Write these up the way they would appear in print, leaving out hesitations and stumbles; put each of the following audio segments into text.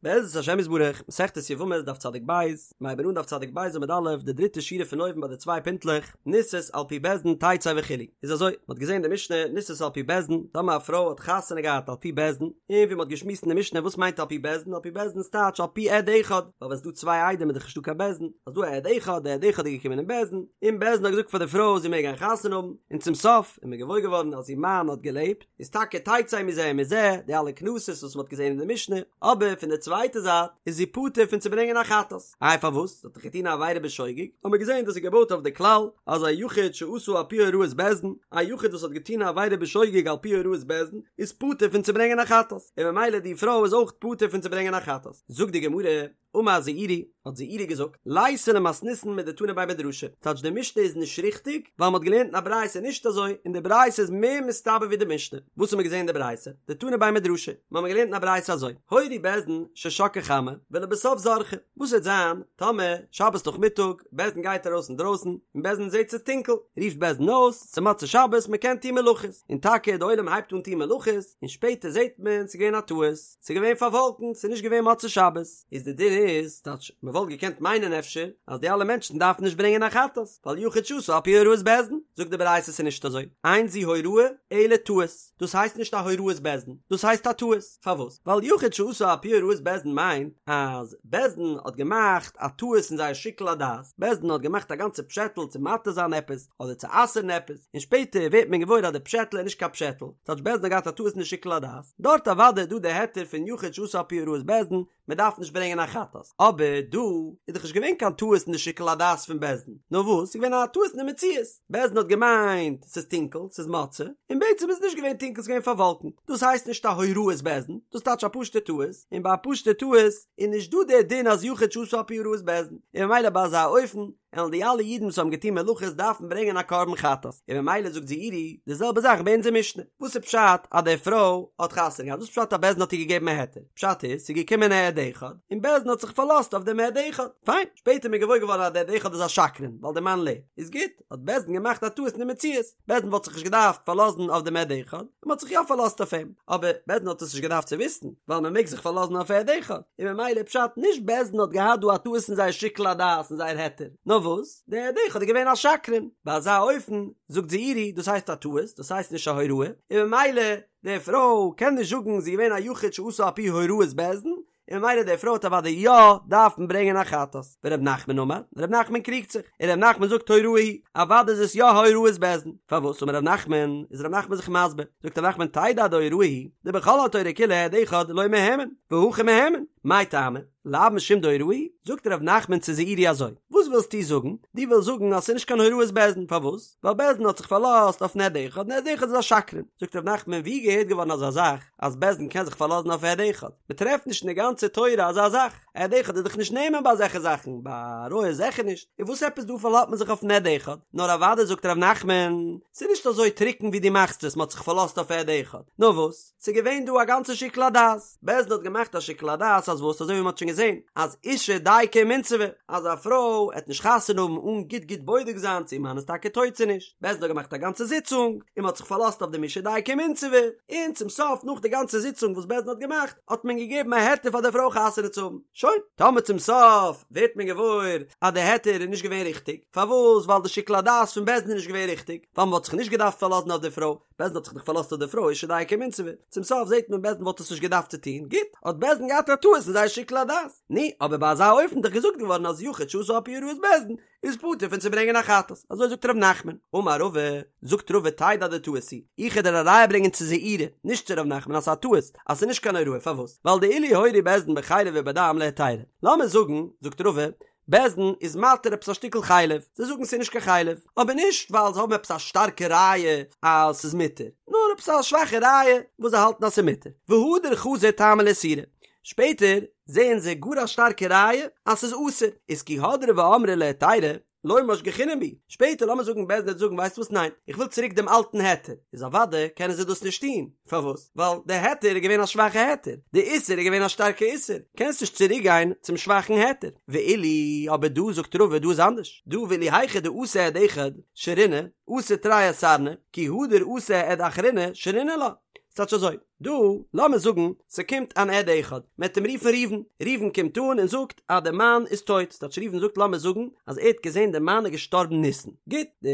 בעזרת השם יתברך, מסכת יבמות דף צדיק בית, מיר הייבן אן דף צדיק בית עמוד א', די דריטע שורה פון אויבן ביי די צוויי פינטלעך, נישאת על פי בית דין תצא וכו'. איז אזוי, מען האט געזען די משנה, נישאת על פי בית דין, טאמער א פרוי האט חתונה געהאט על פי בית דין, און ווי מען האט געשמועסט אין די משנה וואס מיינט על פי בית דין, על פי בית דין איז טייטש על פי עד אחד, ווייל ווען ס'איז דא צוויי עדים איז דאך נישטא קיין בית דין, אז דא א עד אחד, די עד אחד איז געקומען אין בית דין, און בית דין האט געזאגט פאר די פרוי זי מעג גיין חתונה האבן, און צום סוף איז מען געוואויר געווארן אז איר מאן האט געלעבט, איז טאקע תצא מזה ומזה, די אלע קנסות וואס מ'האט געזען אין די משנה, אבער פון די צווייטע זייט איז זי פטור פון צו ברענגען א חטאת. איי פארוואס? זי האט דאך געטון א עבירה בשוגג, האט מען געזען דאס איז געבויט אויף די כלל אז א יחיד שעשה על פי הוראת בית דין, א יחיד וואס האט געטון א עבירה בשוגג על פי הוראת בית דין, איז פטור פון צו ברענגען א חטאת, און ממילא די פרוי איז אויך פטור פון צו ברענגען א חטאת. זאגט די גמרא, אמר זעירי, האט זעירי געזאגט, ליתא למתניתין מדתנא בי מדרשא, טייטש די משנה איז נישט ריכטיג, ווייל מ'האט געלערנט אין א ברייתא נישט אזוי, און די ברייתא איז מער מסתבר ווי די משנה. וואס האט מען געזען אין די ברייתא? דתנא בי מדרשא, מ'האט געלערנט אין א ברייתא אזוי, הורו בית דין ששקעה חמה, ולבסוף זרחה, וואס וועט זיין טאמער שבת נאכמיטאג, בית דין גייט ארויס אינדרויסן, און בית דין זעט ס'איז טונקל, רופט בית דין אויס, ס'איז מוצאי שבת, מ'קען טון מלאכות, און טאקע די עולם הייבט אן טון מלאכות, און שפעטער זעט מען ס'איז געווען א טעות. ס'איז געווען פארוואלקנט, ס'איז נישט געווען מוצאי שבת. איז די דין איז, טייטש, מ'וואלט געקענט מיינען אפשר, אז די אלע מענטשן דארפן נישט ברענגען א חטאת, ווייל יחיד שעשה על פי הוראת בית דין. זאגט די ברייתא ס'איז נישט אזוי. אין זו הוראה, אלא טעות. דאס הייסט נישט א הוראת בית דין, דאס הייסט א טעות. פארוואס? ווייל יחיד שעשה על פי הוראת בית דין מיינט, אז בית דין האט געמאכט א טעות אין זייער שיקול הדעת, בית דין האט געמאכט א גאנצע פשעטל צו מתיר זיין עפעס, אדער צו אסר'ן עפעס, און שפעטער ווערט מען געוואויר אז די פשעטל איז נישט קיין פשעטל, טייטש בית דין האט געהאט א טעות אין די שיקול הדעת. דארט אוודאי איז דא די היתר פון יחיד שעשה על פי הוראת בית דין, מען דארף נישט ברענגען א חטאת, אבער דא איז דאך נישט געווען קיין טעות אין די שיקול הדעת פון בית דין, נאר וואס ס'איז געווען א טעות אין די מציאות, בית דין האט געמיינט ס'איז טונקל, ס'איז מוצאי, און בעצם איז נישט געווען טונקל ס'איז געווען פארוואלקנט, דאס הייסט נישט א הוראת בית דין, דאס טייטש א פשוטע טעות, און ביי א פשוטע טעות איז נישט דא דער דין אז יחיד שעשה על פי הוראת בית דין, און ממילא ביי אזא אופן וועלן די אלע אידן וואס האבן געטון מלאכות דארפן ברענגען א קרבן חטאת, און ממילא זאגט זעירי די זעלבע זאך ביי אונזער משנה, וואס איז פשט אז די פרוי האט חתונה געהאט, וואס פשט אז בית דין האט איר געגעבן א היתר, פשט איז ס'איז געקומען א עד אחד און בית דין האט זיך פארלאזט אויף דעם עד אחד, פיין, שפעטער איז מען געוואויר געווארן אז דער עד אחד איז א שקרן ווייל דער מאן לעבט, איז גוט, האט בית דין געמאכט א טעות אין די מציאות, בית דין וואלט זיך נישט געדארפט פארלאזן אויף דעם עד אחד, און מ'האט זיך יא פארלאזט אויף אים, אבער בית דין האט עס נישט געדארפט צו וויסן, ווייל מען מעג זיך פארלאזן אויף עד אחד, און ממילא פשט נישט בית דין האט געהאט דא א טעות אין זייער שיקול הדעת אין זייער היתר, נאר וואס, דער עד אחד איז געווען א שקרן, ביי אזא אופן, זאגט זעירי, דאס הייסט א טעות, דאס הייסט נישט א הוראה, און ממילא, די פרוי קען נישט זאגן זי איז געווען א יחיד שעשה על פי הוראת בית דין, און ממילא די פרוי וועט אוודאי יא דארפן ברענגען א חטאת. ור' נחמן אמר, ר' נחמן קריגט זיך, און ר' נחמן זאגט הוראה היא, אוודאי איז עס יא הוראת בית דין. פארוואס אמר ר' נחמן, איז ר' נחמן זיך מסביר, זאגט ר' נחמן תדע דהוראה היא, דבכל התורה כולה עד אחד לא מהימן, והכא מהימן, מאי טעמא, לאו משום דהוראה היא? זאגט ר' נחמן צו זעירי אזוי, וואס ווילסטו זאגן? דו ווילסט זאגן אז ס'איז נישט קיין הוראת בית דין, פארוואס? ווייל בית דין האט זיך פארלאזט אויפן עד אחד און עד אחד איז א שקרן. זאגט ר' נחמן ווי געהערט געווארן אזא זאך אז בית דין קען זיך פארלאזן אויף עד אחד? מען טרעפט נישט אין די גאנצע תורה אזא זאך, עד אחד איז דאך נישט נאמן ביי אזעלכע זאכן, ביי עריות זיכער נישט, און וואס עפעס דא פארלאזט מען זיך אויפן עד אחד? נאר אוודאי זאגט ר' נחמן, ס'איז נישט אזוי טרוקן ווי דו מאכסט עס, מען האט זיך פארלאזט אויף עד אחד, נאר וואס? ס'איז געווען דא א גאנצע שיקול הדעת, בית דין האט געמאכט א שיקול הדעת אז וואס אזוי ווי מ'האט שוין געזען אז אשה דייקא ומינסבא אז א פרוי עט נישט חתונה האבן אן גוט גוט בודק זיין צו איר מאן איז טאקע טויט צו נישט, בית דין האט געמאכט א גאנצע זיצונג און מ'האט זיך פארלאזט אויף דעם אשה דייקא ומינסבא, און צום סוף נאך די גאנצע זיצונג וואס בית דין האט געמאכט האט מען געגעבן א היתר פאר די פרוי חתונה צו האבן, שוין, טאמער צום סוף ווערט מען געוואויר אז די היתר איז נישט געווען ריכטיג, פארוואס ווייל די שיקול הדעת פון בית דין איז נישט געווען ריכטיג, ווייל מ'וואלט זיך נישט געדארפט פארלאזן אויף די פרוי, בית דין האט זיך דאך פארלאזט אויף די פרוי אשה דייקא ומינסבא, צום סוף זעט מען בית דין וואלט עס נישט געדארפט צו טון, גוט, האט בית דין געהאט א טעות אין זייער שיקול הדעת, נו, אבער ביי אזא אופן איז דאך געזאגט געווארן אז יחיד שעשה על פי הוראת בית דין איז פטור פון צו ברענגען א חטאת, אזוי זאגט ר' נחמן, אמר רבא, זאגט רבא תדע דטעות היא, איך וועל דיר א ראיה ברענגען צו זעירי, נישט צו ר' נחמן אז ס'איז א טעות, אז ס'איז נישט קיין הוראה, פארוואס? ווייל דאילו הורו בית דין בחלב ובדם להיתירא, לאמיר זאגן, זאגט רבא, בית דין איז מתיר עפעס א שטיקל חלב, זיי זאגן ס'איז נישט קיין חלב, אבער נישט ווייל זיי האבן עפעס א שטארקע ראיה אז ס'איז מותר, נאר עפעס א שוואכע ראיה וואס זיי האלטן אז ס'איז מותר, והדר חזו טעמא לאיסורא, שפעטער זעען זיי גאר א שטארקע ראיה אז ס'איז אסור, איז כי הדרי ואמרי להיתירא, לא משגחינן בהו, שפעטער לאמיר זאגן בית דין וועט זאגן ווייסט וואס ניין, איך וויל צוריק דעם אלטן היתר, איז אוודאי קענען זיי דאס נישט טון, פארוואס? ווייל די היתר איז געווען א שוואכע היתר, די איסור איז געווען א שטארקע איסור, קענסט נישט צוריק גיין צום שוואכן היתר. ואילו, אבער דא זאגט רבא דא איז אנדערש, דא ואילו היכא דאתא עד אחד שרינהו, אתו תרי אסרנהו, כי הדר אתא עד אחרינא שרינהו לה. ס'טייטש אזוי. דא, לאמיר זאגן, ס'קומט אן עד אחד, מ'עט אים רופן ראובן, ראובן קומט אן און זאגט אז די מאן איז טויט, ס'טייטש ראובן זאגט לאמיר זאגן אז ער האט געזען די מאן איז געשטארבן ניסן, גוט, די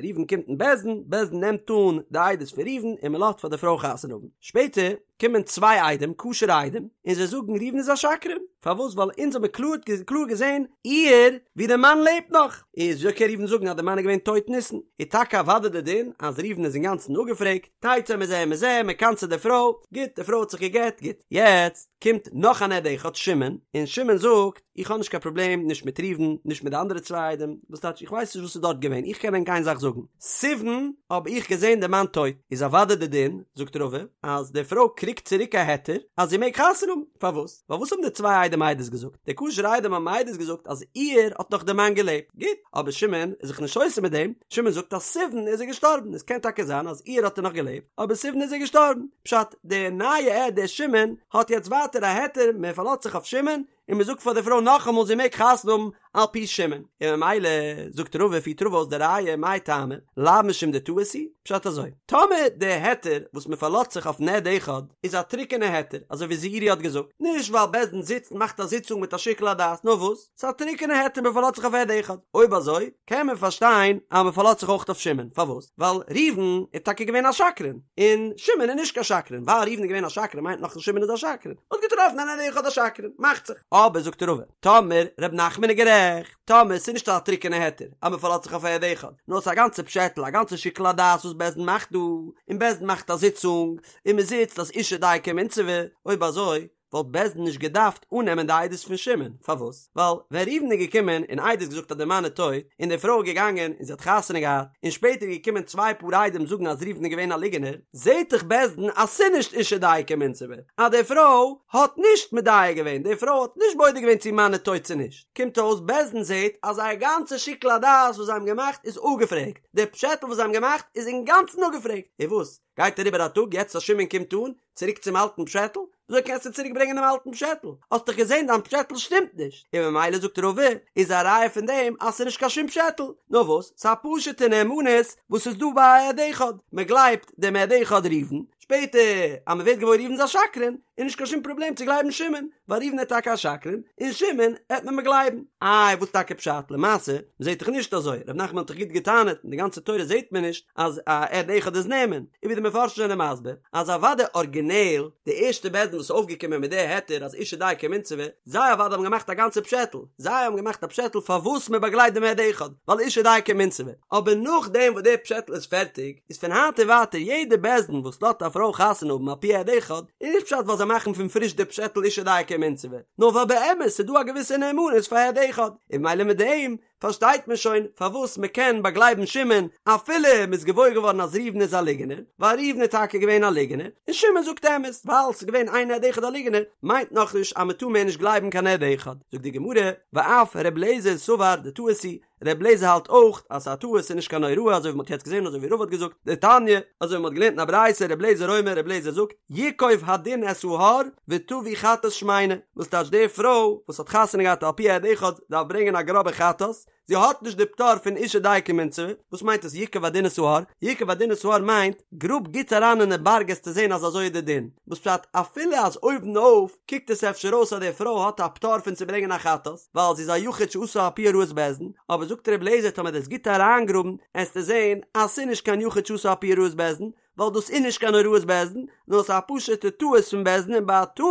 ראובן קומט אין בית דין, בית דין נעמט אן די עדות פון ראובן און מ'לאזט פאר די פרוי חתונה האבן, שפעטער קומען צוויי עדים, כשר'ע עדים, און זיי זאגן ראובן איז א שקרן, פארוואס ווייל אונז האבן קלאר קלאר געזען אייר ווי די מאן לעבט נאך, איז וויאזוי קען ראובן זאגן אז די מאן איז געווען טויט ניסן, איז טאקע אוודאי די דין אז ראובן איז אינגאנצן אפגעפרעגט, תצא מזה ומזה, מען קנס'עט די פרוי, גוט, די פרוי האט זיך גע'גט, גוט. יעצט קומט נאך אן עד אחד, שמעון, און שמעון זאגט, איך האב נישט קיין פראבלעם, נישט מיט ראובן, נישט מיט די אנדערע צוויי עדים, וואס טייטש, איך ווייס נישט וואס איז דארט געווען, איך קען ענק איין זאך זאגן, סיוון האב איך געזען די מאן טויט, איז אוודאי די דין, זאגט רבא, אז די פרוי קריגט צוריק א היתר אז זי מעג חתונה האבן, פארוואס? ווייל וואס האבן די צוויי עדים עדות געזאגט? די כשר'ע עדים האבן עדות געזאגט אז אייר האט נאך די מאן געלעבט. גוט, אבער שמעון איז זיך נישט סותר מיט דעם, שמעון זאגט אז סיוון איז ער געשטארבן, עס קען טאקע זיין אז אייר האט ער נאך געלעבט, אבער סיוון איז ער געשטארבן. פשט, די נייע עד דער שמעון האט יעצט ווייטער א היתר, מען פארלאזט זיך אויף שמעון, און מען זאגט פאר די פרוי נאכאמאל זי מעג חתונה האבן על פי שמעון, און ממילא זאגט רבא פירט רבא אויס די ראיה מאי טעמא, לאו משום דטעות הוא, פשט אזוי, טאמער די היתר וואס מען פארלאזט זיך אויפן עד אחד איז א טרוקענע היתר אזוי ווי זעירי האט געזאגט, נישט ווייל בית דין זיצט און מאכט א זיצונג מיט א שיקול הדעת, נאר וואס, ס'איז א טרוקענע היתר מען פארלאזט זיך אויף עד אחד, אויב אזוי קען מען פארשטיין אז מען פארלאזט זיך אויך אויף שמעון, פארוואס? ווייל ראובן איז טאקע געווען א שקרן, און שמעון איז נישט קיין שקרן, ווייל ראובן איז געווען א שקרן מיינט נאכנישט שמעון איז א שקרן, מען האט געטראפן אן עד אחד א שקרן, מאכט זיך. אבער זאגט רבא, טאמער ר' נחמן איז גערעכט, טאמער ס'איז נישט א טרוקענע היתר אז מ'פארלאזט זיך אויף א עד אחד, נאר ס'איז א גאנצע פשעטל, א גאנצע שיקול הדעת וואס בית דין מאכט דא, און בית דין מאכט א זיצונג, און מ'זיצט אז אשה דייקא ומינסבא, אויב אזוי וואלט בית דין נישט געדארפט אננעמען די עדות פון שמעון, פארוואס? ווייל ווען ראובן איז געקומען און עדות געזאגט אז דער מאן איז טויט, און די פרוי איז געגאנגען און זי האט חתונה געהאט, און שפעטער איז געקומען צוויי פאר עדים זאגן אז ראובן איז געווען א ליגענער, זעט דאך בית דין אז ס'איז נישט אשה דייקא ומינסבא, אז די פרוי האט נישט מדייק געווען, די פרוי האט נישט בודק געווען צו מאן איז טויט צו נישט, קומט אויס בית דין זעט אז זייער גאנצע שיקול הדעת וואס זיי האבן געמאכט איז אפגעפרעגט, די פשעטל וואס זיי האבן געמאכט איז אינגאנצן אפגעפרעגט, און וואס? גייט אריבער א טאג יעצט אז שמעון קומט אן, צוריק צום אלטן פשעטל? וויאזוי קענסטו צוריק ברענגען דעם אלטן פשעטל? האסט דאך געזען דיין פשעטל שטימט נישט, און ממילא זאגט רבא איז א ראיה פון דעם אז ס'איז נישט קיין שום פשעטל, נאר וואס ס'איז א פשוטע נאמנות וואס איז דא ביי א עד אחד, מ'גלייבט דעם עד אחד ראובן, שפעטער אז מ'ווערט געוואויר ראובן איז א שקרן, איז נישט קיין שום פראבלעם צו גלייבן שמעון, ווייל ראובן איז טאקע א שקרן, און שמעון העט מען גלייבן. איי וואס טאקע פשט? למעשה מ'זעט דאך נישט אזוי, ר' נחמן האט דאך גוט געטענה'ט, אין די גאנצע תורה זעט מען נישט אז א עד אחד איז נאמן, און ווי די מפרשים זענען מסביר, אז אוודאי ארגינעל, די ערשטע בית דין וואס איז אויפגעקומען מיט די היתר אז אשה דייקא ומינסבא, זיי אוודאי האבן געמאכט א גאנצע פשעטל, זיי האבן געמאכט א פשעטל פארוואס מען באגלייבט דעם עד אחד, ווייל אשה דייקא ומינסבא, אבער נאכדעם וואס די פשעטל איז פערטיג, איז פון היינט און ווייטער יעדע בית דין וואס לאזט א פרוי חתונה האבן על פי עד אחד, איז נישט פשט ווייל זיי מאכן פון פריש די פשעטל אשה דייקא ומינסבא, נאר ווייל באמת איז דא א געוויסע נאמנות פאר עד אחד, און ממילא מיט דעם פארשטייט מען שוין פארוואס מען קען באגלייבן שמעון אפילו מען איז געוואויר געווארן אז ראובן איז א ליגענער, ווייל ראובן איז טאקע געווען א ליגענער, און שמעון זאגט אמת, ווייל ס'איז געווען איין עד אחד א ליגענער, מיינט נאכנישט אז מען טאר מער נישט גלייבן קיין עד אחד. זאגט די גמרא, ואף ר' אליעזר סבר דטעות הוא, ר' אליעזר האלט אויך אז ס'איז א טעות און נישט קיין הוראה אזוי ווי מ'האט יעצט געזען אזוי ווי רבא האט געזאגט, דתניא, אזוי ווי מ'האט געלערנט אין א ברייתא ר' אליעזר אומר ר' אליעזר זאגט, ייקוב הדין את ההר ותביא חטאת שמנה, וואס טייטש די פרוי וואס האט חתונה געהאט על פי עד אחד דארף ברענגען א גראבע חטאת, זי האט נישט די פטור פון אשה דייקא ומינסבא, וואס מיינט עס ייקוב הדין את ההר? ייקוב הדין את ההר מיינט, גראב גוט אריין אינעם בארג עסטו זען אז אזוי איז די דין, וואס פשט אפילו אז אויבן אויף קוקט עס אפשר אויס אז די פרוי האט א פטור פון צו ברענגען א חטאת, ווייל זי איז א יחיד שעשה על פי הוראת בית דין, אבער זאגט ר' אליעזר טאמער דו'סט גוט אריינגראבן עסטו זען אז ס'איז נישט קיין יחיד שעשה על פי הוראת בית דין, ווייל דאס איז נישט קיין הוראת בית דין, נאר ס'איז א פשוט'ע טעות פון בית דין און ביי א טעות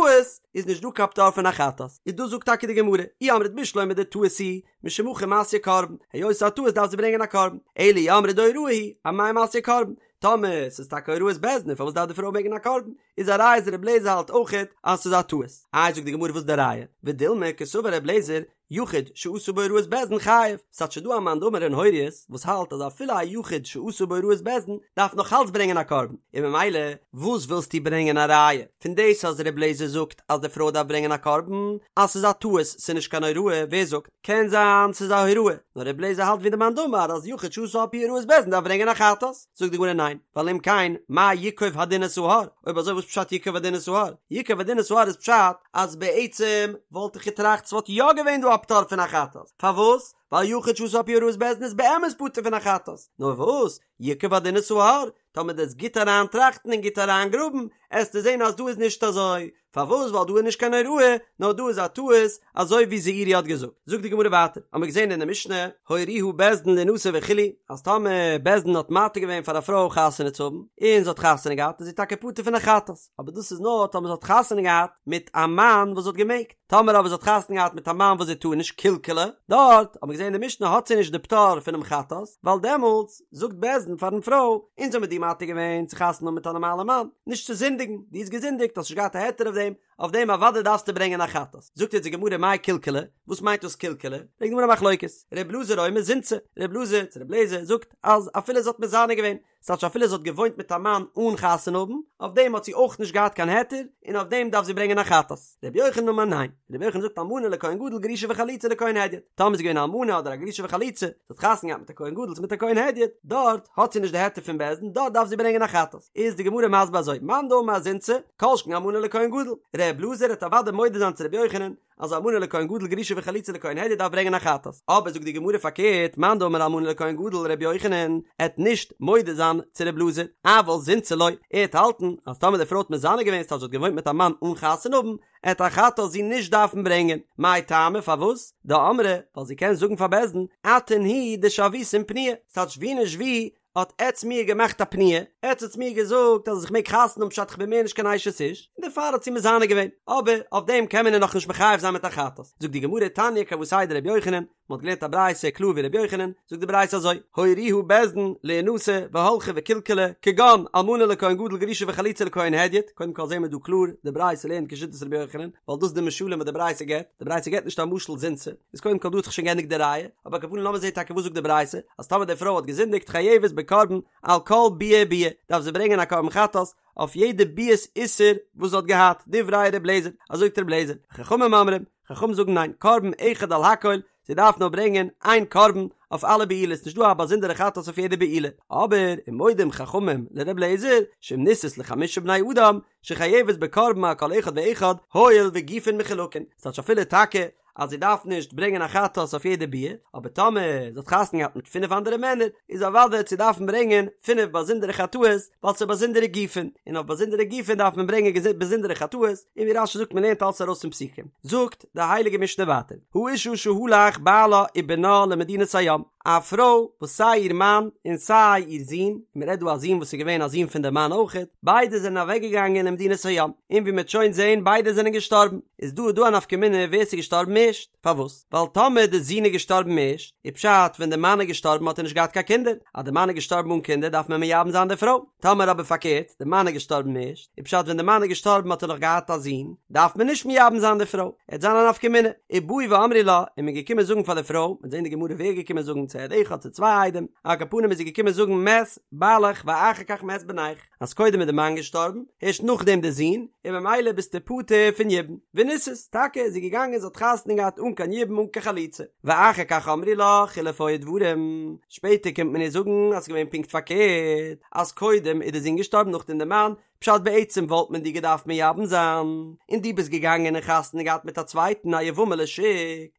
איז נישט דא קיין פטור פון א חטאת. איז דאס זאגט טאקע די גמרא, אי אמרת בשלמא דטעות הוא, משום הכי מתיא קרבן, היות ס'איז א טעות דארף זי ברענגען א קרבן, אלא אי אמרת דהוראה היא, אמאי מתיא קרבן, טאמער ס'איז טאקע הוראת בית דין פארוואס דארף די פרוי ברענגען א קרבן, איז א ראיה אז ר' אליעזר האלט אויכעט אז ס'איז א טעות. איי זאגט די גמרא וואס איז די ראיה? ודילמא קסבר ר' אליעזר יחיד שעשה בהוראת בית דין חייב, ס'טייטש ס'דא א מאן דאמר אין הוריות וואס האלט אז אפילו א יחיד שעשה בהוראת בית דין דארף נאך אלץ ברענגען א קרבן, און ממילא וואס ווילסטו ברענגען א ראיה פון דאס אז ר' אליעזר זאגט אז די פרוי דארף ברענגען א קרבן אז ס'איז א טעות ס'איז נישט קיין הוראה ווער זאגט? קען זיין ס'איז א הוראה נאר ר' אליעזר האלט ווי די מאן דאמר אז יחיד שעשה על פי הוראת בית דין דארף ברענגען א חטאת. זאגט די גמרא ניין, ווייל אם כן, מאי ייקוב הדין את ההר, אויב אזוי וואס פשט ייקוב הדין את ההר? ייקוב הדין את ההר איז פשט אז בעצם וואלט איך געטראכט ס'וואלט יא געווען דא א פטור פון א חטאת, פארוואס? ווייל יחיד שעשה על פי הוראת בית דין איז באמת פטור פון א חטאת, נאר וואס, ייקוב הדין את ההר, טאמער דו'סט גוט אריין טראכטן און גוט אריין גראבן, עסטו זען אז דא איז נישט אזוי, פארוואס ווייל דא איז נישט קיין הוראה נאר דא איז א טעות אזוי ווי זעירי האט געזאגט. זאגט די גמרא ווייטער, האמיר געזען אין די משנה, הורוה בית דין לינשא וכו', אז טאמער בית דין האט מתיר געווען פאר א פרוי חתונה צו האבן, און זי האט חתונה געהאט איז זי טאקע פטור פון א חטאת, אבער דאס איז נאר טאמער זי האט חתונה געהאט מיט א מאן וואס זי האט געמעגט, טאמער אבער זי האט חתונה געהאט מיט א מאן וואס זי טאר נישט קלקלה, דארט האט מען געזען אין די משנה האט זי נישט די פטור פונעם חטאת, ווייל דעמאלטס זאגט בית דין פארן פרוי, אונז האמיר דיר מתיר געווען צו חתונה האבן מיט א נארמאלע מאן, נישט צו זינדיגן, דו האסט געזינדיגט, האסט נישט געהאט א היתר אויף דעם, אויף דעם אוודאי דארפסטו ברענגען א חטאת. זאגט יעצט די גמרא מאי קלקלה, וואס מיינט דאס קלקלה? ברענגט די גמרא א מחלוקת, ר' אלעזר אומר זינתה, ר' אלעזר צו ר' אליעזר זאגט אז אפילו זי האט מזנה געווען, ס'טייטש אפילו זי האט געוואוינט מיט א מאן אן חתונה האבן, אויף דעם האט זי אויך נישט געהאט קיין היתר, און אויף דעם דארף זי ברענגען א חטאת. רבי יוחנן אמר ניין, רבי יוחנן זאגט אלמנה לכהן גדול גרושה וחלוצה לכהן הדיוט, טאמער זי איז געווען א אלמנה אדער א גרושה וחלוצה, זי האט חתונה געהאט מיט א כהן גדול צו מיט א כהן הדיוט, דארט האט זי נישט די היתר פון בית דין, דארט דארף זי ברענגען א חטאת. איז די גמרא מסביר אזוי, מאן דאמר זינתה, כל שכן אלמנה לכהן גדול, ר' אלעזר העט אוודאי מודה זיין צו רבי יוחנן, אז אלמנה לכהן גדול גרושה וחלוצה לכהן הדיוט דארף ברענגען א חטאת. אבער זאגט די גמרא פארקערט, מאן דאמר אלמנה לכהן גדול ר' יוחנן עט נישט מודה זיין צו ר' אלעזר, אבל זינתה לא, ער העט האלטן אז טאמער די פרוי האט מזנה געווען ס'טייטש זי האט געוואוינט מיט א מאן אן חתונה האבן, עט א חטאת זי נישט דארפן ברענגען. מאי טעמא פארוואס? דאמרה, ווייל זי קען זאגן פאר בית דין, אתון הוא דשויתון פנויה, ס'טייטש ווי נישט ווי האט עטץ מיר געמאכט א פניה, עטץ האטס מיר געזאגט אז איך מעג חתונה האבן פשט איך בין מער נישט קיין אשת איש, און דערפאר האט זי מזנה געווען, אבער אויף דעם קען מען איר נאכנישט מחייב זיין מיט א חטאת, זאגט די גמרא תניא כוותיה דרבי יוחנן, מען האט געלערנט א ברייתא קלאר ווי רבי יוחנן, זאגט די ברייתא אזוי, הורוה בית דין להנשא והלכה וקלקלה, כגון אלמנה לכהן גדול גרושה וחלוצה לכהן הדיוט, קודם כל זעהן מיר דא קלאר די ברייתא לערנט כשיטת רבי יוחנן, ווייל דאס איז די משלים וואס די ברייתא געבט, די ברייתא געבט נישט א משל זינתה, איז קודם כל דא האט זיך שוין געענדיגט די ראיה, אבער על כל פנים לאמיר זעהן טאקע וואס זאגט די ברייתא, אז טאמער די פרוי האט געזינדיגט חייבת בקרבן על כל ביאה וביאה, דארף זי ברענגען א קרבן חטאת אויף יעדע ביאת איסור וואס זי האט געהאט, דברי ר' אליעזר, אזוי זאגט ר' אליעזר, חכמים אומרים, חכמים זאגן ניין, קרבן אחד על הכל, זי דארף נאר ברענגען איין קרבן אויף אלע בעילות, נישט דא א באזונדערע חטאת אויף יעדע בעילה, אבער ומודים חכמים לר' אליעזר, שאם נישאת לחמישה בני אדם, שחייבת בקרבן על כל אחד ואחד, הואיל וגופין מחולקין, ס'טייטש אפילו טאקע אז זי דארף נישט ברענגען א חטאת אויף יעדע ביאה, אבער טאמער זי האט חתונה געהאט מיט פינף אנדערע מענער, איז אוודאי צו דארפן ברענגען פינף באזונדערע חטאות, ווייל ס'איז באזונדערע גופין, און אויף באזונדערע גופין דארף מען ברענגען באזונדערע חטאות, און ווי רש"י זאגט מ'לערנט אלעס ארויס פון פסוקים. זאגט די הייליגע משנה ווייטער, האשה שהלך בעלה ובנה למדינת הים, א פרוי וואס סיי איר מאן און סיי איר זון, און מען רעדט דא א זון וואס איז געווען א זון פון די מאן אויכעט, ביידע זענען אוועק געגאנגען למדינת הים, און ווי מען וועט שוין זען ביידע זענען געשטארבן, איז דא דא א נפקא מינה ווער ס'איז געשטארבן ערשט, פארוואס? ווייל טאמער די זון איז געשטארבן ערשט, איז פשט ווען די מאן איז געשטארבן האט ער נישט געהאט קיין קינדער, אז די מאן איז געשטארבן אן קינדער דארף מען מייבם זיין די פרוי, טאמער אבער פארקערט, די מאן איז געשטארבן ערשט, איז פשט ווען די מאן איז געשטארבן האט ער נאך געהאט א זון, דארף מען נישט מייבם זיין די פרוי, עט זיין א נפקא מינה, ובאו ואמרו לה, און מען איז געקומען זאגן פאר די פרוי, מ'וועט זען די גמרא ווער איז געקומען זאגן, צו עד אחד צו צוויי עדים, על כל פנים איז זי געקומען זאגן מת בעלך ואחר כך מת בנך, אז קודם איז די מאן געשטארבן, הערשט נאכדעם די זון, און ממילא ביסטו פטור פון יבום. ונישאת, טאקע איז זי געגאנגען זי האט חתונה געהאט אן קיין יבום אן קיין חליצה. ואחר כך אמרו לה חילוף היו דברים, שפעטער קומט מען איר זאגן אז ס'איז געווען פונקט פארקערט, אז קודם איז די זון געשטארבן נאכדעם די מאן, פשט בעצם וואלט מען דיר געדארפט מייבם זיין, און דו ביסט געגאנגען און חתונה געהאט מיט א צווייטן א יבמה לשוק,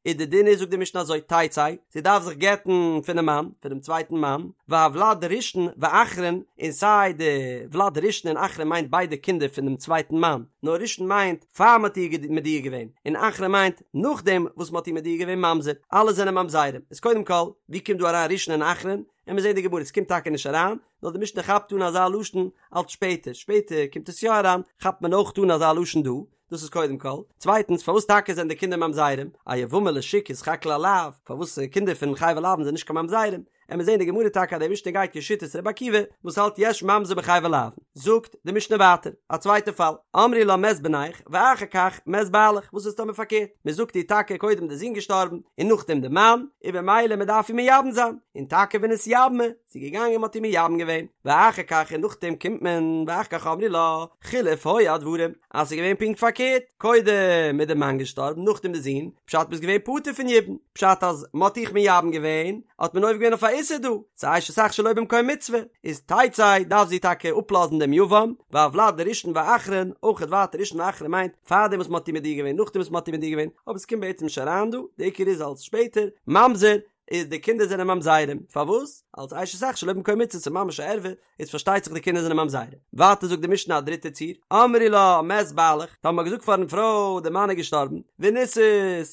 איז די דין איז זאגט די משנה אזוי תצא, זי דארף זיך גט'ן פונעם מאן, פונעם צווייטן מאן, והולד ראשון ואחרון, און סיי די ולד ראשון און אחרון מיינט ביידע קינדער פונעם צווייטן מאן, נאר ראשון מיינט פאר מ'האט איר מודיע געווען, און אחרון מיינט נאכדעם וואס מ'האט איר מודיע געווען ממזר, אלע זענען ממזרים, איז קודם כל, ווי קומט דא אריין ראשון און אחרון? און מ'זעט די גמרא עס קומט טאקע נישט אריין, נאר די משנה כאפט אן אזא לשון אלץ שפעטער, שפעטער קומט עס יא אריין, כאפט מען אויך אן אזא לשון דא, דאס איז קודם כל, צווייטנס פארוואס טאקע זענען די קינדער ממזרים, א יבמה לשוק איז סך הכל א לאו, פארוואס קינדער פון חייבי לאוין זענען נישט קיין ממזרים, און מיר זעהן די גמרא טאקע אז די משנה גייט כשיטת רבי עקיבא וואס האלט יש ממזר בחייבי לאוין, זאגט די משנה ווייטער א צווייטע פאל, אמרו לה מת בנך ואחר כך מת בעלך, וואס איז טאמער פארקערט, מען זאגט איר טאקע קודם די זון געשטארבן און נאכדעם די מאן, און במילא מען דארף איר מייבם זיין, און טאקע ונתייבמה, זי איז געגאנגען מען האט איר מייבם געווען, ואחר כך און נאכדעם קומט מען ואחר כך אמרו לה חילוף היו הדברים, אז ס'איז געווען פונקט פארקערט, קודם איז די מאן געשטארבן נאכדעם די זון, פשט ביסט געווען פטור פון יבום, פשט אז מען האט דיך מייבם געווען האט מען עובר געווען אויף א איסור דא, ס'איז אשת אח שלא במקום מצוה, איז תצא דארף זי טאקע אפלאזן דעם יבם, והולד ראשון ואחרון, אויכעט ווייטער ראשון ואחרון מיינט פארדעם וואס מען האט איר מודיע געווען נאכדעם וואס מען האט איר מודיע געווען, אבער ס'קומט בעצם נישט אריין דא, די עיקר איז אלס שפעטער, ממזר. איז די קינדער זענען ממזרים, פארוואס? אלס אשת אח שלא במקום מצוה ס'איז ממש א ערווה, איז פארשטייט זיך די קינדער זענען ממזרים. ווייטער זאגט די משנה א דריטע ציור, אמרו לה מת בעלך, טאמער מ'האט געזאגט פארן פרוי די מאן איז געשטארבן, ונישאת,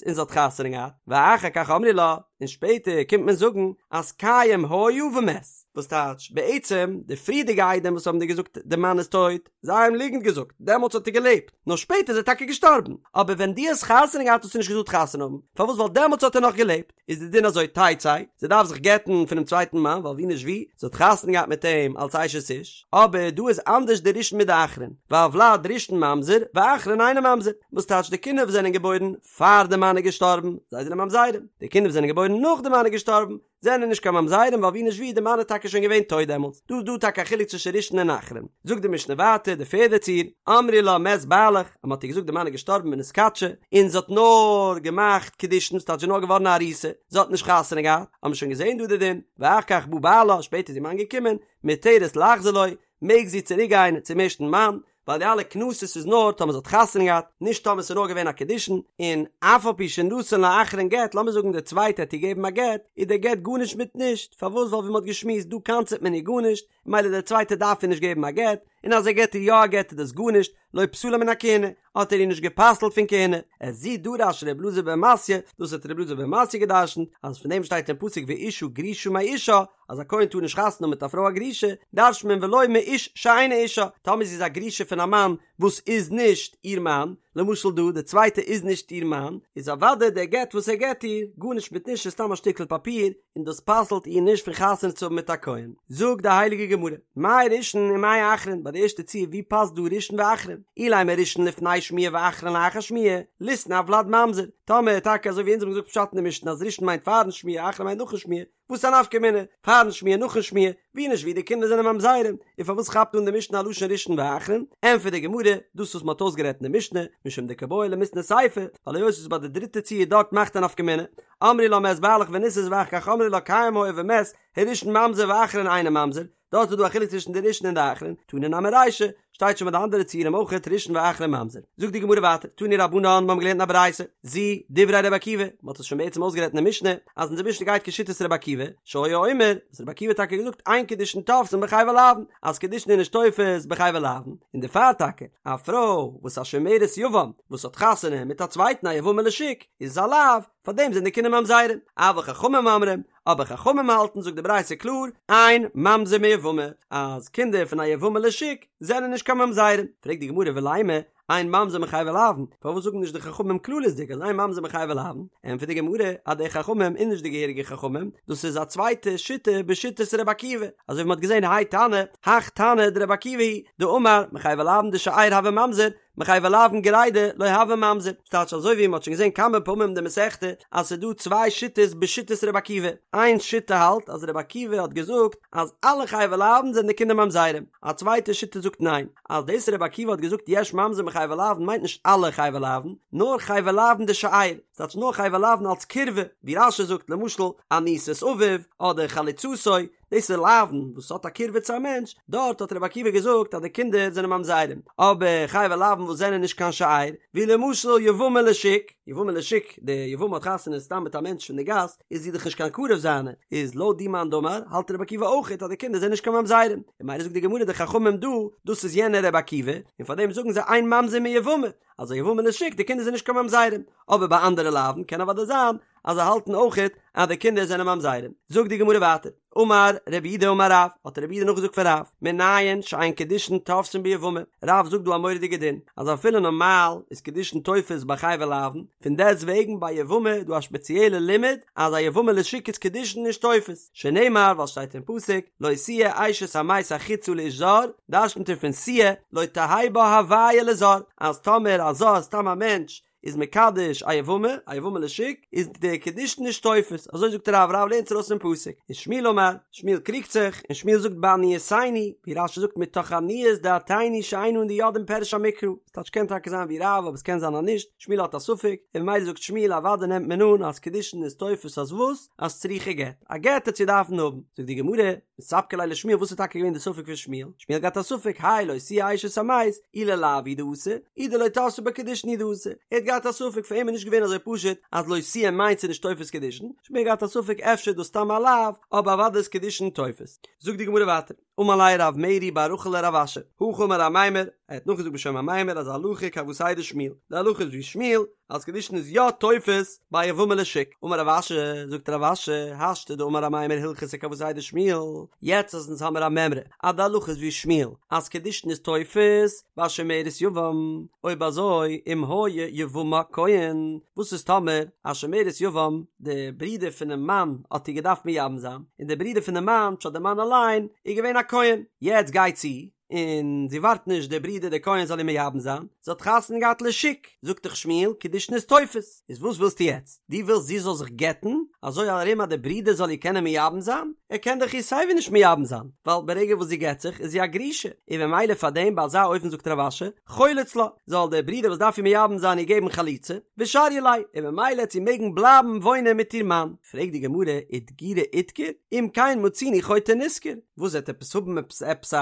און זי האט חתונה געהאט, ואחר כך אמרו לה, און שפעטער קומט מען זאגן אז קיים היה ומת, וואס טייטש בעצם די פריערדיגע עדים וואס האבן דיר געזאגט די מאן איז טויט, זיי האבן ליגנט געזאגט, דעמאלטס האט ער געלעבט, נאר שפעטער איז ער טאקע געשטארבן, אבער ווען דו האסט חתונה געהאט האסטו נישט געזאלט חתונה האבן, פארוואס ווייל דעמאלטס האט ער נאך געלעבט, איז די דין אזוי תצא, זי דארף זיך גט'ן פונעם צווייטן מאן ווייל ווי נישט ווי, זי האט חתונה געהאט מיט אים אלס אשת איש, אבער דא איז אנדערש די ראשון מיט די אחרון, ווייל ולד ראשון ממזר ואחרון אינו ממזר, וואס טייטש די קינדער וואס זענען געבוירן פאר די מאן איז געשטארבן, זיי זענען ממזרים, די קינדער וואס זענען געבוירן נאך די מאן איז געשטארבן, זענען נישט קיין ממזרים ווייל ווי נישט ווי די מאן איז טאקע שוין געווען טויט דעמאלטס, דא איז דא טאקע א חילוק צווישן ראשון און אחרון. זאגט די משנה ווייטער די פערדע ציור, אמרו לה מת בעלך, אז מען האט איר געזאגט די מאן איז געשטארבן ונתקדשה, און זי האט נאר געמאכט קידושין, ס'טייטש זי איז נאר געווארן א ארוסה, זי האט נישט חתונה געהאט, האט מען שוין געזען דא די דין, ואחר כך בא בעלה, שפעטער איז איר מאן געקומען, מותרת לחזור לו, מעג זי צוריק גיין צום ערשטן מאן, ווייל די אלע קנסות איז נאר טאמער זי האט חתונה געהאט, נישט טאמער ס'איז נאר געווען א קידושין, און אף על פי שנתן לה אחרון גט, לאמיר זאגן דער צווייטער האט איר געגעבן א גט, איז דער גט גארנישט מיט נישט, פארוואס ווייל ווי מ'האט געשמועסט דא קנס'עט מען איר גארנישט, ממילא דער צווייטער דארף איר נישט געבן א גט, און אז ער געט איר יא א גט איז דאס גארנישט, לא פסלה מן הכהונה, האט ער איר נישט גע'פסל'ט פון כהונה. את זו דרש ר' אלעזר בן מתיא, דאס האט ר' אלעזר בן מתיא גע'דרש'נט, אז פון דעם שטייט אין פסוק ואשה גרושה מאישה, אז א כהן טאר נישט חתונה האבן מיט א פרוי א גרושה, דרש'נט מען ולא מאיש שאינו אישה, טאמער זי איז א גרושה פון א מאן וואס איז נישט איר מאן, למשל דא די צווייטע איז נישט איר מאן, איז אוודאי דער גט וואס ער געט איר, גארנישט מיט נישט איז סתם א שטיקל פאפיר, און דאס פסל'ט איר נישט פון חתונה צו האבן מיט א כהן. זאגט די הייליגע גמרא, מאי ראשון ומאי אחרון, ביי די ערשטע ציור ווי פאסט דא ראשון ואחרון? אילימא ראשון לפני שמיעה ואחרון לאחר שמיעה, ליתני הולד ממזר, טאמער טאקע אזוי ווי אונז האבן געזאגט פשט אין די משנה אז ראשון מיינט פארן שמיעה אחרון מיינט נאכן שמיעה, וואס איז א נפקא מינה, פארן שמיעה נאכן שמיעה, ווי נישט ווי די קינדער זענען ממזרים, און פארוואס כאפט אן די משנה א לשון ראשון ואחרון? ענטפערט די גמרא, דאס וואס מען האט אויסגערעדט אין די משנה, משום דקא בעי למיתני סיפא, ווייל היות וואס ביי די דריטע ציור דארט מאכט א נפקא מינה, אמרו לה מת בעלך ונישאת ואחר כך אמרו לה קיים היה ומת, הראשון ממזר ואחרון אינו ממזר, דארט איז דא א חילוק צווישן די ראשון און די אחרון, תנא נמי רישא, שטייט שוין ביי די אנדערע ציורים אויכעט ראשון ואחרון ממזר. זאגט די גמרא ווייטער, תנו רבנן, מיר האבן געלערנט אין א ברייתא, זו דברי רבי עקיבא, מען האט עס שוין בעצם אויסגערעדט אין די משנה, אז אונזער משנה גייט כשיטת רבי עקיבא, שהיה אומר, וואס רבי עקיבא האט טאקע געזאגט אין קידושין תופסין בחייבי לאוין, אז קידושין איז נישט תופס בחייבי לאוין, און דערפאר טאקע, א פרוי וואס א שומרת יבם, וואס האט חתונה מיט א צווייטן א יבמה לשוק, איז עס א לאו, פארדעם זענען די קינדער ממזרים, אבל חכמים אומרים, אבער חכמים האלטן זאגט די ברייתא קלאר, אין ממזר מיבמה, אז קינדער פון א יבמה לשוק זענען נישט קיין ממזרים, פרעגט די גמרא ולימא, אין ממזר מחייבי לאוין, פארוואס זאגן נישט די חכמים כללית'דיג אז אין ממזר מחייבי לאוין, ענטפערט די גמרא אז די חכמים איז נישט די געהעריגע חכמים, דאס איז א צווייטע שיטה בשיטת רבי עקיבא, אזוי ווי מען האט געזען האי תנא, הך תנא דרבי עקיבא היא, דאמר, מחייבי לאוין דשאר הוי ממזר, מחייבי לאוין גרידא לא הוי ממזר, ס'טייטש אזוי ווי מ'האט שוין געזען כמה פעמים אין די מסכתא אז ס'איז דא צוויי שיטות בשיטת רבי עקיבא, איין שיטה האלט אז רבי עקיבא האט געזאגט אז אלע חייבי לאוין זענען די קינדער ממזרים, א צווייטע שיטה זאגט ניין, אז דאס רבי עקיבא האט געזאגט יש ממזר מחייבי לאוין מיינט נישט אלע חייבי לאוין, נאר חייבי לאוין דשאר, ס'טייטש נאר חייבי לאוין אלס קירבה, ווי רש"י זאגט למשל אנוסת אביו אדער חלוצתו, דאס איז לאוין וואס האט א קירבה צו א מענטש, דארט האט רבי עקיבא געזאגט אז די קינדער זענען ממזרים, אבער חייבי לאוין וואס זענען נישט קיין שאר, ווי למשל יבמה לשוק, יבמה לשוק, די יבמה האט חתונה סתם מיט א מענטש פון די גאס, איז זי דאך נישט קיין קרוב זיינע, איז לויט די מאן דאמר האלט רבי עקיבא אויכעט אז די קינדער זענען נישט קיין ממזרים, און ממילא זאגט די גמרא די חכמים דא, דאס איז יענער רבי עקיבא, און פאר דעם זאגן זיי אין ממזר מיבמה, אז א יבמה לשוק די קינדער זענען נישט קיין ממזרים, אבער ביי אנדערע לאוין קען אוודאי זיין אז זיי האלטן אויכעט אז די קינדער זענען ממזרים. זאגט די גמרא ווייטער, אמר רב יהודה אמר רב, האט רב יהודה נאכגעזאגט פון רב, מנין שאין קידושין תופסין ביבמה, רב זאגט דא א מורא'דיגע דין, אז אפילו נארמאל איז קידושין תופס ביי חייבי לאוין, פון דעסט וועגן ביי יבמה איז דא א שפעציעלע לימוד אז א יבמה לשוק איז קידושין נישט תופס, שנאמר ווייל שטייט אין פסוק, לא תהיה אשת המת החוצה לאיש זר, דרש'נט ער פון תהיה, לא תהא בה הויה לזר, אז טאמער א זר סתם א מענטש איז מקדש א יבמה, א יבמה לשוק, איז די קידושין נישט תופס, אזוי זאגט רב, רב לערנט עס ארויס פון פסוק, ושמואל אמר, שמואל קריגט זיך, און שמואל זאגט בעניותינו, ווי רש"י זאגט מתוך עניות דעתינו שאין אנו יודעים פירוש המקרא, ס'טייטש קען טאקע זיין ווי רב אבער ס'קען זיין אז נישט, שמואל האט א ספק, און ממילא זאגט שמואל אוודאי נעמט מען אן אז קידושין איז תופס אז וואס? אז צריכה גט, א גט וועט זי דארפן האבן, זאגט די גמרא, מספקא ליה לשמואל וואס איז טאקע געווען די ספק פון שמואל? שמואל האט געהאט א ספק, האי לא תהיה אשת המת, אי ללאו הוא דאתא, אי דלא תפסי בה קידושין הוא דאתא, ער האט. געהאט א ספק פאר אים איז נישט געווען אזוי פשוט אז לא תהיה מיינט ס'איז נישט תופס קידושין, שמואל האט געהאט א ספק אפשר איז דאס סתם א לאו, אבער אוודאי איז קידושין תופס. זאגט די גמרא ווייטער, אמר ליה רב מרי בר רחל לרב אשי, הכי אמר אמימר, ער האט נאכגעזאגט בשם אמימר אז הלכה כוותיה דשמואל, די הלכה איז ווי שמואל, אז קידושין איז יא תופס ביי יבמה לשוק, אמר רב אשי, זאגט רב אשי, השתא דאמר אמימר הלכתא כוותיה דשמואל, יעצט אז אונז האמיר א מימרא אז די הלכה איז ווי שמואל אז קידושין איז תופס ביי שומרת יבם, אויב אזוי אם היה יבמה כהן, וואס איז טאמער א שומרת יבם, די ברודער פונעם מאן האט איר געדארפט מייבם זיין, און די ברודער פונעם מאן, פשט די מאן אליין, איז געווען א כהן, יעצט גייט זי, און זי ווארט נישט דער ברודער דער כהן זאל איר מייבם זיין, זי האט חתונה געהאט לשוק, זאגט דאך שמואל, קידושין איז תופס, איז וואס ווילסטו יעצט? דו ווילסט זי זאל זיך גט'ן, אזוי ארום אז דער ברודער זאל איר קענען מייבם זיין? ער קען דאך איר סייווי נישט מייבם זיין, ווייל ברגע וואס זי גט זיך איז זי א גרושה, און ממילא פאר דעם ביי אזא אופן זאגט רב אשי, חולץ לה, זאל דער ברודער וואס דארף איר מייבם זיין איר געבן חליצה, ושריא ליה, און ממילא וועט זי מעגן בלייבן וואוינען מיט איר מאן. פרעגט די גמרא, ודגירא אידכר? אם כן מצינו חוטא נשכר, וואס זי וועט עפעס האבן עפעס עפעס א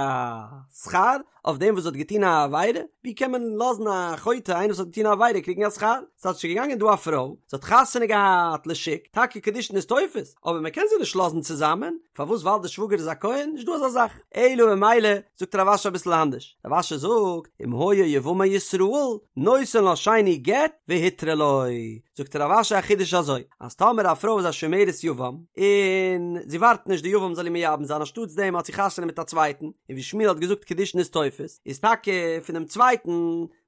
שכר אויף דעם וואס זי האט געטון א עבירה? ווי קען מען לאזן א חוטא איינער וואס האט געטון א עבירה קריגן א שכר? ס'האט שוין געגאנגען דא א פרוי, זי האט חתונה געהאט לשוק, טאקע קידושין איז תופס, אבער מען קען זיי נישט לאזן צוזאמען, פארוואס ווייל די שוואגער איז א כהן? נישט דא אזא זאך. אלא ממילא זאגט רב אשי אביסל אנדערש, רב אשי זאגט, אם היה יבמה ישראל, נותן לה שני גט והותרה לו, זאגט רב אשי א חידוש אזוי, אז טאמער א פרוי איז א שומרת יבם, און זי ווארט נישט די יבם זאל איר מייבם זיין אנשטאטס דעם האט זי חתונה מיט א צווייטן, און ווי שמואל האט געזאגט קידושין איז תופס, איז טאקע פונעם צווייטן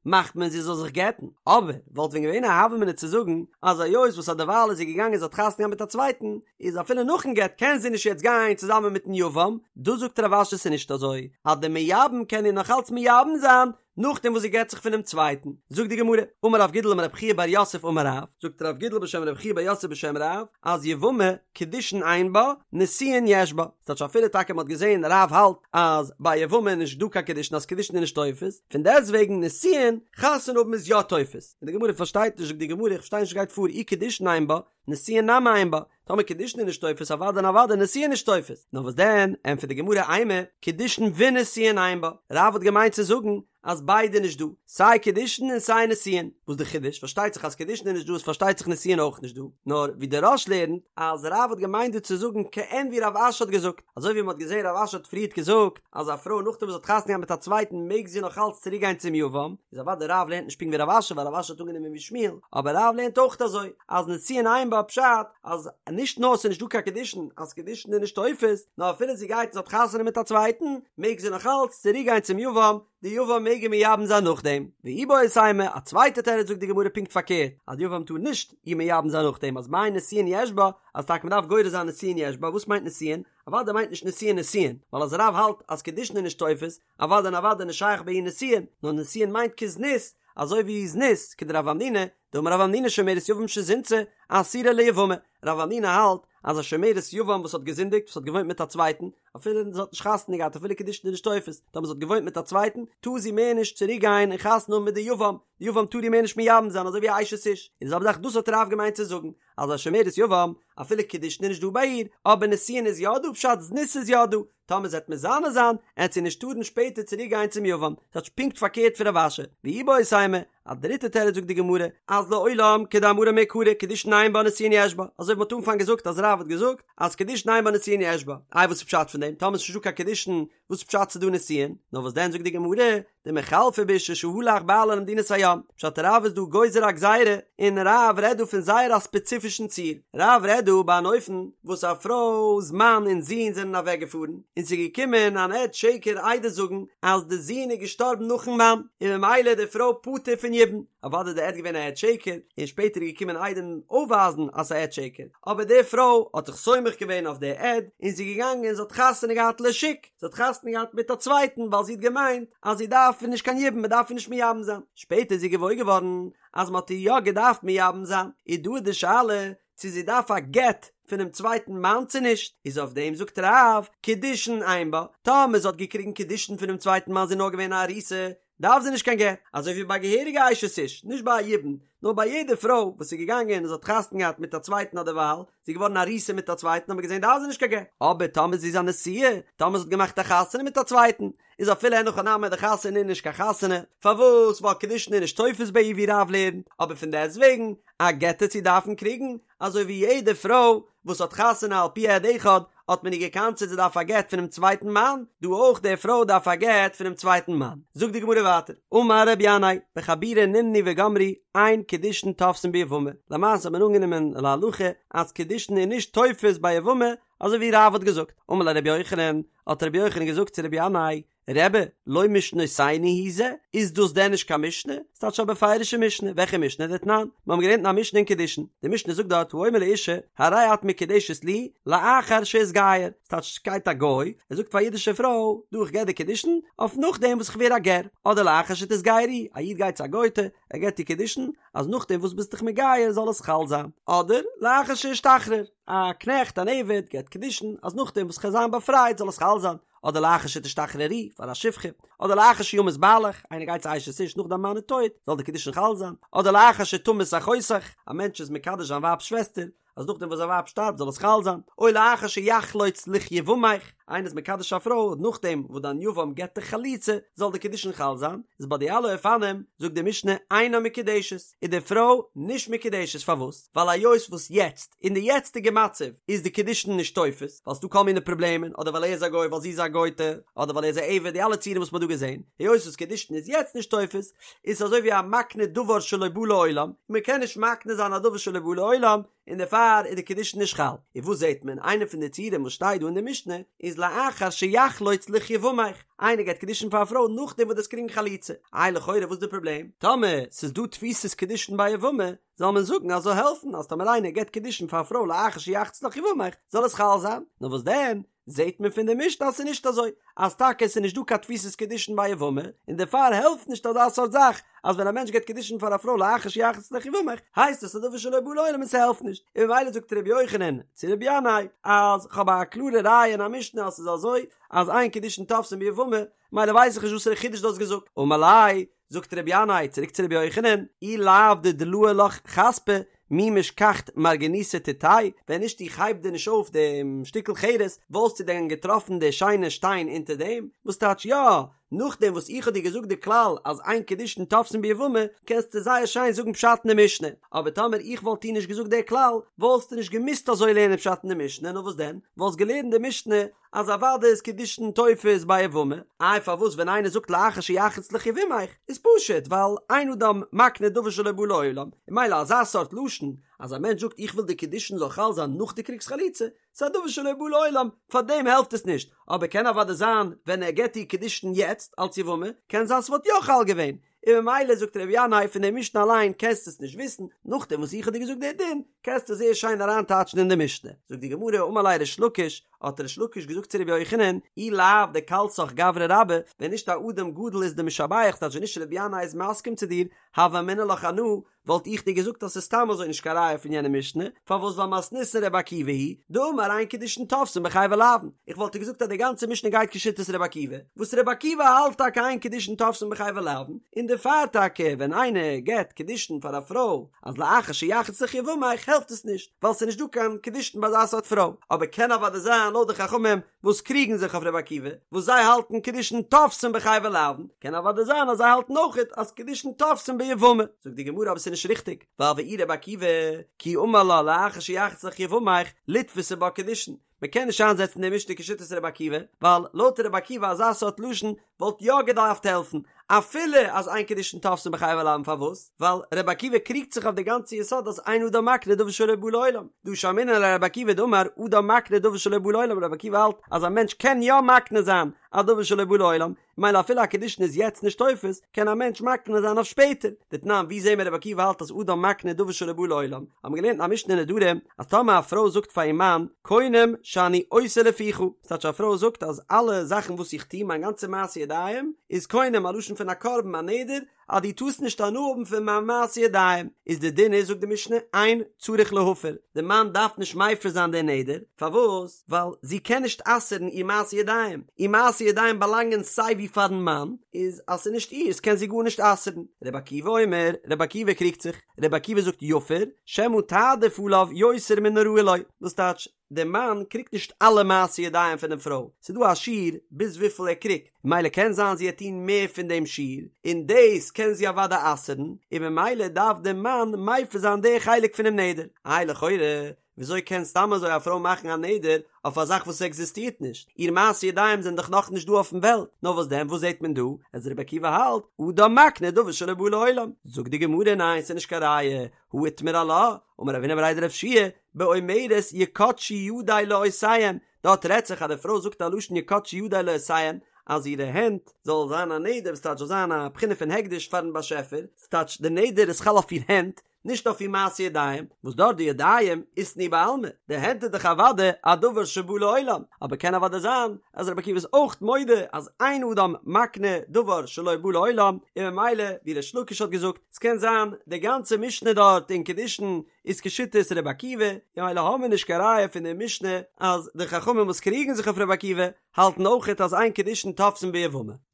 מאכט מען זי זאל זיך גט'ן, אבער וואלט ווען געווען א הוה אמינא צו זאגן אז היות וואס א דערווייל איז זי געגאנגען זי האט חתונה געהאט מיט א צווייטן, איז אפילו נאכן גט קען זי נישט יעצט גיין צוזאמען מיטן יבם, דא זאגט רב אשי ס'איז נישט אזוי, אז די מייבם קען איר נאך אלץ מייבם זיין נאכדעם וואס זי גט זיך פונעם צווייטן. זאגט די גמרא, אמר רב גידל אמר רב חייא בר יוסף אמר רב, זאגט רב גידל בשם רב חייא בר יוסף בשם רב, אז יבמה קידושין אין בה, נישואין יש בה. ס'טייטש אפילו טאקע מ'האט געזען רב האלט אז ביי יבמה איז נישט דא קיין קידושין אז קידושין איז נישט תופס, פון דעסטוועגן נישואין, חתונה האבן איז יא תופס. און די גמרא פארשטייט נישט, זאגט די גמרא איך פארשטיי נישט וואס גייט פאר אי קידושין אין בה, נישואין נמי אין בה, טאמער קידושין איז נישט תופס אוודאי און אוודאי נישואין נישט תופס. נאר וואס דען, ענטפערט די גמרא אימא, קידושין ונישואין אין בה, רב האט געמיינט צו זאגן אז ביידע נישט דא, סיי קידושין און סיי נישואין, וואס די חידוש? פארשטייט זיך אז קידושין איז נישט דא איז פארשטייט זיך נישואין אויך נישט דא, נאר ווי דער רא"ש לערנט אז רב האט געמיינט דא צו זאגן כעין ווי רב אשי האט געזאגט, אזוי ווי מען האט געזען רב אשי האט פריערט געזאגט אז א פרוי נאכדעם וואס האט חתונה געהאט מיט א צווייטן מעג זי נאך אלץ צוריק גיין צום יבם, איז אוודאי רב לערנט נישט פונקט ווי רב אשי ווייל רב אשי האט אנגענומען ווי שמואל, אבער רב לערנט אויך אזוי אז נישואין אין בה פשט אז נישט נאר ס'איז נישט דא קיין קידושין אז קידושין איז נישט תופס, נאר אפילו זי גייט און זי האט חתונה מיט א צווייטן מעג זי נאך אלץ צוריק גיין צום יבם, די יבם מעג איר מייבם זיין נאכדעם, ואיבעית אימא, א צווייטע תירוץ זאגט די גמרא פונקט פארקערט, אז די יבם טאר נישט איר מייבם זיין נאכדעם, אז מאי נישואין יש בה, אז טאקע מ'דארף גורס זיין נישואין יש בה, וואס מיינט נישואין? אוודאי מיינט נישט נישואין נישואין, ווייל אז רב האלט אז קידושין איז נישט תופס, אוודאי און אוודאי נישט שייך ביי איר נישואין, נאר נישואין מיינט כזנות, אזוי ווי זנות, כדרב המנונא, דאמר רב המנונא שומרת יבם שזינתה, אסורה ליבמה, רב המנונא האלט אז א שומרת יבם וואס האט געזינדיגט, וואס האט געוואוינט מיט א צווייטן, אפילו זי האט נישט חתונה געהאט אפילו קידושין איז נישט תופס, טאמער זי האט געוואוינט מיט א צווייטן, טאר זי מער נישט צוריק גיין און חתונה האבן מיט די יבם, די יבם טאר איר מער נישט מייבם זיין אזוי ווי א אשת איש, און די זעלבע זאך דאס האט רב געמיינט צו זאגן, אז א שומרת יבם, אפילו קידושין איז נישט דא ביי איר, אבער נישואין איז יא דא, פשט זנות איז יא דא, טאמער זי וועט מזנה זיין, עט זי נישט טארן שפעטער צוריק גיין צום יבם, ס'טייטש פונקט פארקערט פון רב אשי, ואיבעית אימא, א דריטע תירוץ זאגט די גמרא, אז לעולם כדאמרן מעיקרא קידושין אין בה נישואין יש בה, אזוי ווי מ'האט אנפאנג געזאגט אז רב האט געזאגט אז קידושין אין בה נישואין יש בה, איי וואס איז פשט פון דעם, טאמער ס'נישט דא קיין קידושין וואס איז פשט ס'דא נישואין, נאר וואס דען זאגט די גמרא, דמיחלפא באשה שהלך בעלה למדינת הים, פשט רב איז דא גוזר א גזירה, און רב רעדט דא פון זייער א ספעציפישן ציור, רב רעדט דא ביי אן אופן וואס א פרוי'ס מאן און זון זענען אוועק געפארן, און ס'איז געקומען אן עד שקר עדות זאגן אז די זון איז געשטארבן נאכן מאן, און ממילא איז די פרוי פטור פון יבום, אוודאי די עד געווען א עד שקר, און שפעטער איז געקומען עדים אויפווייזן אז ס'איז א עד שקר, אבער די פרוי האט זיך סומך געווען אויף די עד, און זי איז געגאנגען און זי האט חתונה געהאט לשוק. זי האט חתונה געהאט מיט א צווייטן ווייל זי האט געמיינט אז זי דארף נישט קיין יבום מען דארף איר נישט מייבם זיין, שפעטער איז זי געוואויר געווארן אז מען האט איר יא געדארפט מייבם זיין, איז דא איז די שאלה צו זי דארף א גט פונעם צווייטן מאן צו נישט, איז אויף דעם זאגט רב, קידושין אין בה, טאמער זי האט געקריגן קידושין פונעם צווייטן מאן זי איז נאר געווען א ארוסה, דארף זי נישט קיין גט, אזוי ווי ביי געהעריגע אשת איש, נישט ביי א יבום, נאר ביי יעדע פרוי וואס איז געגאנגען און זי האט חתונה געהאט מיט א צווייטן אדערווייל, זי איז געווארן ארוסה מיט א צווייטן האט מען געזען דארף זי נישט קיין גט, אבער טאמער זי איז א נשואה, טאמער זי האט געמאכט א חתונה מיט א צווייטן, איז אפילו אין הכי נמי די חתונה איז נישט קיין חתונה, פארוואס? ווייל קידושין איז נישט תופס ביי איר ווי רב לערנט, אבער פון דעסט וועגן, א גט וועט זי דארפן קריגן, אזוי ווי יעדע פרוי וואס האט חתונה על פי עד אחד האט מען איר גע'קנס'עט זי דארף א גט פונעם צווייטן מאן, דא אויך די פרוי דארף א גט פונעם צווייטן מאן. זאגט די גמרא ווייטער, אמר רבי ינאי, בחבורה נמנו וגמרו, אין קידושין תופסין ביבמה, למעשה האט מען אנגענומען להלכה אז קידושין איז נישט תופס ביי יבמה, אזוי ווי רב האט געזאגט, אמר ליה רבי יוחנן, האט רבי יוחנן געזאגט צו רבי ינאי, רבי, לא משנותינו היא זה? איז דאס דען נישט קיין משנה? ס'טייטש א בפירוש'ע משנה, וועלכע משנה? דתנן, מיר האבן געלערנט אין א משנה אין קידושין, די משנה זאגט דארט האומר לאשה הרי את מקודשת לי לאחר שאתגייר, ס'טייטש ס'גייט א גוי, ער זאגט פאר א אידישע פרוי, דא איך געב דיר קידושין, אויף נאכדעם וואס איך ווער א גר, אדער לאחר שתתגיירי, א איד גייט צו א גוי'טע, ער געבט איר קידושין, אז נאכדעם וואס ביסט דיך מגייר זאל עס חל זיין, אדער לאחר שאשתחרר, א קנעכט אן עבד געבט קידושין אז נאכדעם וואס כ'וועל זיין באפרייט זאל עס חל זיין, אדער לאחר שתשתחררי פאר א שפחה, אדער לאחר שימות בעלך, איינער גייט צו אשת איש נאך דיין מאן איז טויט, זאל די קידושין חל זיין, אדער לאחר שתמות אחותך, א מענטש איז מקדש זיין ווייב'ס שוועסטער, אז נאכדעם וואס זיין ווייב שטארבט זאל עס חל זיין, או לאחר שיחלוץ לך יבמך, איינער איז מקדש א פרוי נאכדעם וואס דיין יבם געבט דיך חליצה, זאל די קידושין חל זיין, איז ביי די אלע אופנים, זאגט די משנה אינה מקודשת, איז די פרוי נישט מקודשת, פארוואס? ווייל היות וואס יעצט, אין די יעצטיגע מצב, איז די קידושין נישט תופס, ווייל ס'דא כל מיני פראבלעמען, אדער ווייל ער איז א גוי, ווייל זי איז א גוי'טע, אדער ווייל ער איז א עבד, די אלע ציורים וואס מ'האט דא געזען, היות וואס קידושין איז יעצט נישט תופס, איז עס אזוי ווי א מקנה דבר שלא בא לעולם, און מ'קען נישט מקנה זיין א דבר שלא בא לעולם, און דערפאר איז די קידושין נישט חל. און וואס זעט מען? איינע פון די ציורים וואס שטייט דא אין די משנה איז לאחר שיחלוץ לך יבמך, איינער געבט קידושין פאר א פרוי נאכדעם וואס דו וועסט קריגן חליצה. איי לכאורה וואס איז די פראבלעם? טאמער ס'איז דא תפיסת קידושין ביי יבמה, זאל מען זאגן אז זאל העלפן אז טאמער איינער געבט קידושין פאר א פרוי לאחר שיחלוץ לך יבמך זאל עס חל זיין, נאר וואס דען זעט מען פון די משנה אז ס'איז נישט אזוי, אז טאקע עס איז נישט דא קיין תפיסת קידושין ביי יבמה, און דערפאר העלפט נישט אזא סארט זאך אז ווען א מענטש געבט קידושין פאר א פרוי לאחר שיחלוץ לך יבמך הייסט עס א דבר שלא בא לעולם און ס'העלפט נישט, און ממילא זאגט ר' יוחנן צו ר' ינאי אז כ'האב א קלארע ראיה אין א משנה אז ס'איז אזוי אז אין קידושין תופסין ביבמה, ממילא ווייס איך נישט וואסערע חידוש דו האסט געזאגט, אמר ליה זאגט רבי ינאי צוריק צו רבי יוחנן, אי לאו דדלאי לך חספא מי משכחת מרגניתא תותיה, ווען נישט איך הייב דיר נישט אויף דעם שטיקל חרס, וואלסטו דען געטראפן די שיינע שטיין אונטער דעם? וואס טייטש יא, נאכדעם וואס איך האב דיר געזאגט די כלל אז אין קידושין תופסין ביבמה, קענסטו זייער שיין זאגן פשט אין די משנה, אבער טאמער איך וואלט דיר נישט געזאגט די כלל, וואלסטו נישט געמוזט אזוי לערנען פשט אין די משנה, נאר וואס דען, וואלסט געלערנט די משנה אז אוודאי איז קידושין תופס ביי יבמה, איי פארוואס ווען איינער זאגט לאחר שיחלוץ לך יבמך איז פשוט ווייל אין אדם מקנה דבר שלא בא לעולם, און ממילא אזא סארט לשון אז א מענטש זאגט איך וויל די קידושין זאל חל זיין נאך דו קריגסט חליצה, ס'איז א דבר שלא בא לעולם, פארדעם העלפט עס נישט, אבער קען אוודאי זיין ווען ער געט איר קידושין יעצט אלץ יבמה קען זיין ס'וואלט יא חל געווען, און ממילא זאגט רבי ינאי פון די משנה אליין קענסטו עס נישט וויסן, נאכדעם וואס איך האב דיר געזאגט די דין קענסטו זייער שיין אריינטייטשן אין די משנה. זאגט די גמרא אמר ליה ריש לקיש, האט ריש לקיש געזאגט צו רבי יוחנן, אי לאו דקלסך גברא רבה, ווען נישט א אדם גדול איז דמשבח ס'טייטש ווען נישט רבי ינאי איז מסכים צו דיר, הוה אמינא לך אנא, וואלט איך דיר געזאגט אז ס'איז סתם אזוי נישט קיין ראיה פון יענע משנה, פארוואס ווייל מתניתין רבי עקיבא היא, דאמר אין קידושין תופסין בחייבי לאוין, איך וואלט דיר געזאגט אז די גאנצע משנה גייט כשיטת רבי עקיבא, וואס רבי עקיבא האלט טאקע אין קידושין תופסין בחייבי לאוין, און דערפאר טאקע ווען איינער געבט קידושין פאר א פרוי אז לאחר שיחלוץ לך יבמך העלפט עס נישט, ווייל ס'איז נישט דא קיין קידושין ביי אזא סארט פרוי, אבער קען אוודאי זיין לויט די חכמים וואס קריגן זיך אויף רבי עקיבא, וואס זיי האלטן קידושין תופסין בחייבי לאוין, קען אוודאי זיין אז זיי האלטן אויכעט אז קידושין תופסין ביבמה. זאגט די גמרא אבער ס'איז נישט ריכטיג, ווייל ואי רבי עקיבא, כי אמר לה לאחר שיחלוץ לך יבמך, ליתפסו בה קידושין, מ'קען נישט איינזעצן די משנה כשיטת רבי עקיבא, ווייל לויט רבי עקיבא אזא סארט לשון וואלט יא געדארפט העלפן, אפילו אז אין קידושין תופסין בחייבי לאוין פארוואס? ווייל רבי עקיבא קריגט זיך אויף די גאנצע יסוד אז אין אדם מקנה דבר שלא בא לעולם, דהא שמעינן לרבי עקיבא דאמר אדם מקנה דבר שלא בא לעולם רבי עקיבא האלט אז א מענטש קען יא מקנה זיין א דבר שלא בא לעולם, ממילא אפילו א קידושין איז יעצט נישט תופס קען א מענטש מקנה זיין אויף שפעטער, דתנן ווי זעהן מיר רבי עקיבא האלט אז אדם מקנה דבר שלא בא לעולם? האבן מיר געלערנט אין א משנה אין נדרים אז טאמער א פרוי זאגט פאר איר מאן קונם שאני עושה לפיך, ס'טייטש א פרוי זאגט אז אלע זאכן וואס איך טו מיין גאנצע מעשה ידיים איז קונם א לשון פון א קרבן א נדר. אז דו טארסט נישט הנאה האבן פון מיין מעשה ידיים, איז די דין איז זאגט די משנה אין צריך להפר, די מאן דארף נישט מפר זיין די נדר, פארוואס? ווייל זי קען נישט אסר'ן איר מעשה ידיים, איר מעשה ידיים באלאנגען סיי ווי פארן מאן, איז אז ס'איז נישט איר'ס קען זי גארנישט אסר'ן. רבי עקיבא אומר, רבי עקיבא קריגט זיך, רבי עקיבא זאגט יפר, שמא תעדיף עליו יותר מן הראוי לו, וואס טייטש, דער מאן קריגט נישט אלע מעשי ידיים פונעם פרוי, ס'איז דא א שיעור ביז וויפיל ער קריגט, ממילא קען זיין זי העט טון מער פון דעם שיעור, און דאס קען זי אוודאי אסר'ן, און ממילא דארף דער מאן מפר זיין די חלק פונעם נדר. איי לכאורה, וויאזוי קען סתם אזוי א פרוי מאכן א נדר אויף א זאך וואס עקזיסטירט נישט? איר מעשי ידיים זענען דאך נאכנישט דא אויפן וועלט, נאר וואס דען וואס זעט מען דא? אז רבי עקיבא האלט, אדם מקנה דבר שלא בא לעולם. זאגט די גמרא ניין ס'איז נישט קיין ראיה, הא איתמר עלה, אמר רב הונא בריה דרב יהושע באומרת יקדשו ידי לעושיהם, דארט רעדט זיך אז די פרוי זאגט א לשון יקדשו ידי לעושיהם, אז אירע הענט זאל זיין א נדר, וואס טייטש זאל זיין א בחינה פון הקדש פארן באשעפער, ס'טייטש די נדר איז חל אויף איר הענט, נישט אויף איר מעשי ידיים, וואס דארט די ידיים איתנהו בעלמא, די הענט איז דאך אוודאי א דבר שבא לעולם, אבער קען אוודאי זיין אז רבי עקיבא איז אויך מודה אז אין אדם מקנה דבר שלא בא לעולם, און ממילא ווי ריש לקיש האט געזאגט, ס'קען זיין די גאנצע משנה דארט אין קידושין איז כשיטת רבי עקיבא, און ממילא האבן מיר נישט קיין ראיה פון די משנה אז די חכמים וואס קריגן זיך אויף רבי עקיבא האלטן אויכעט אז אין קידושין תופסין ביבמה.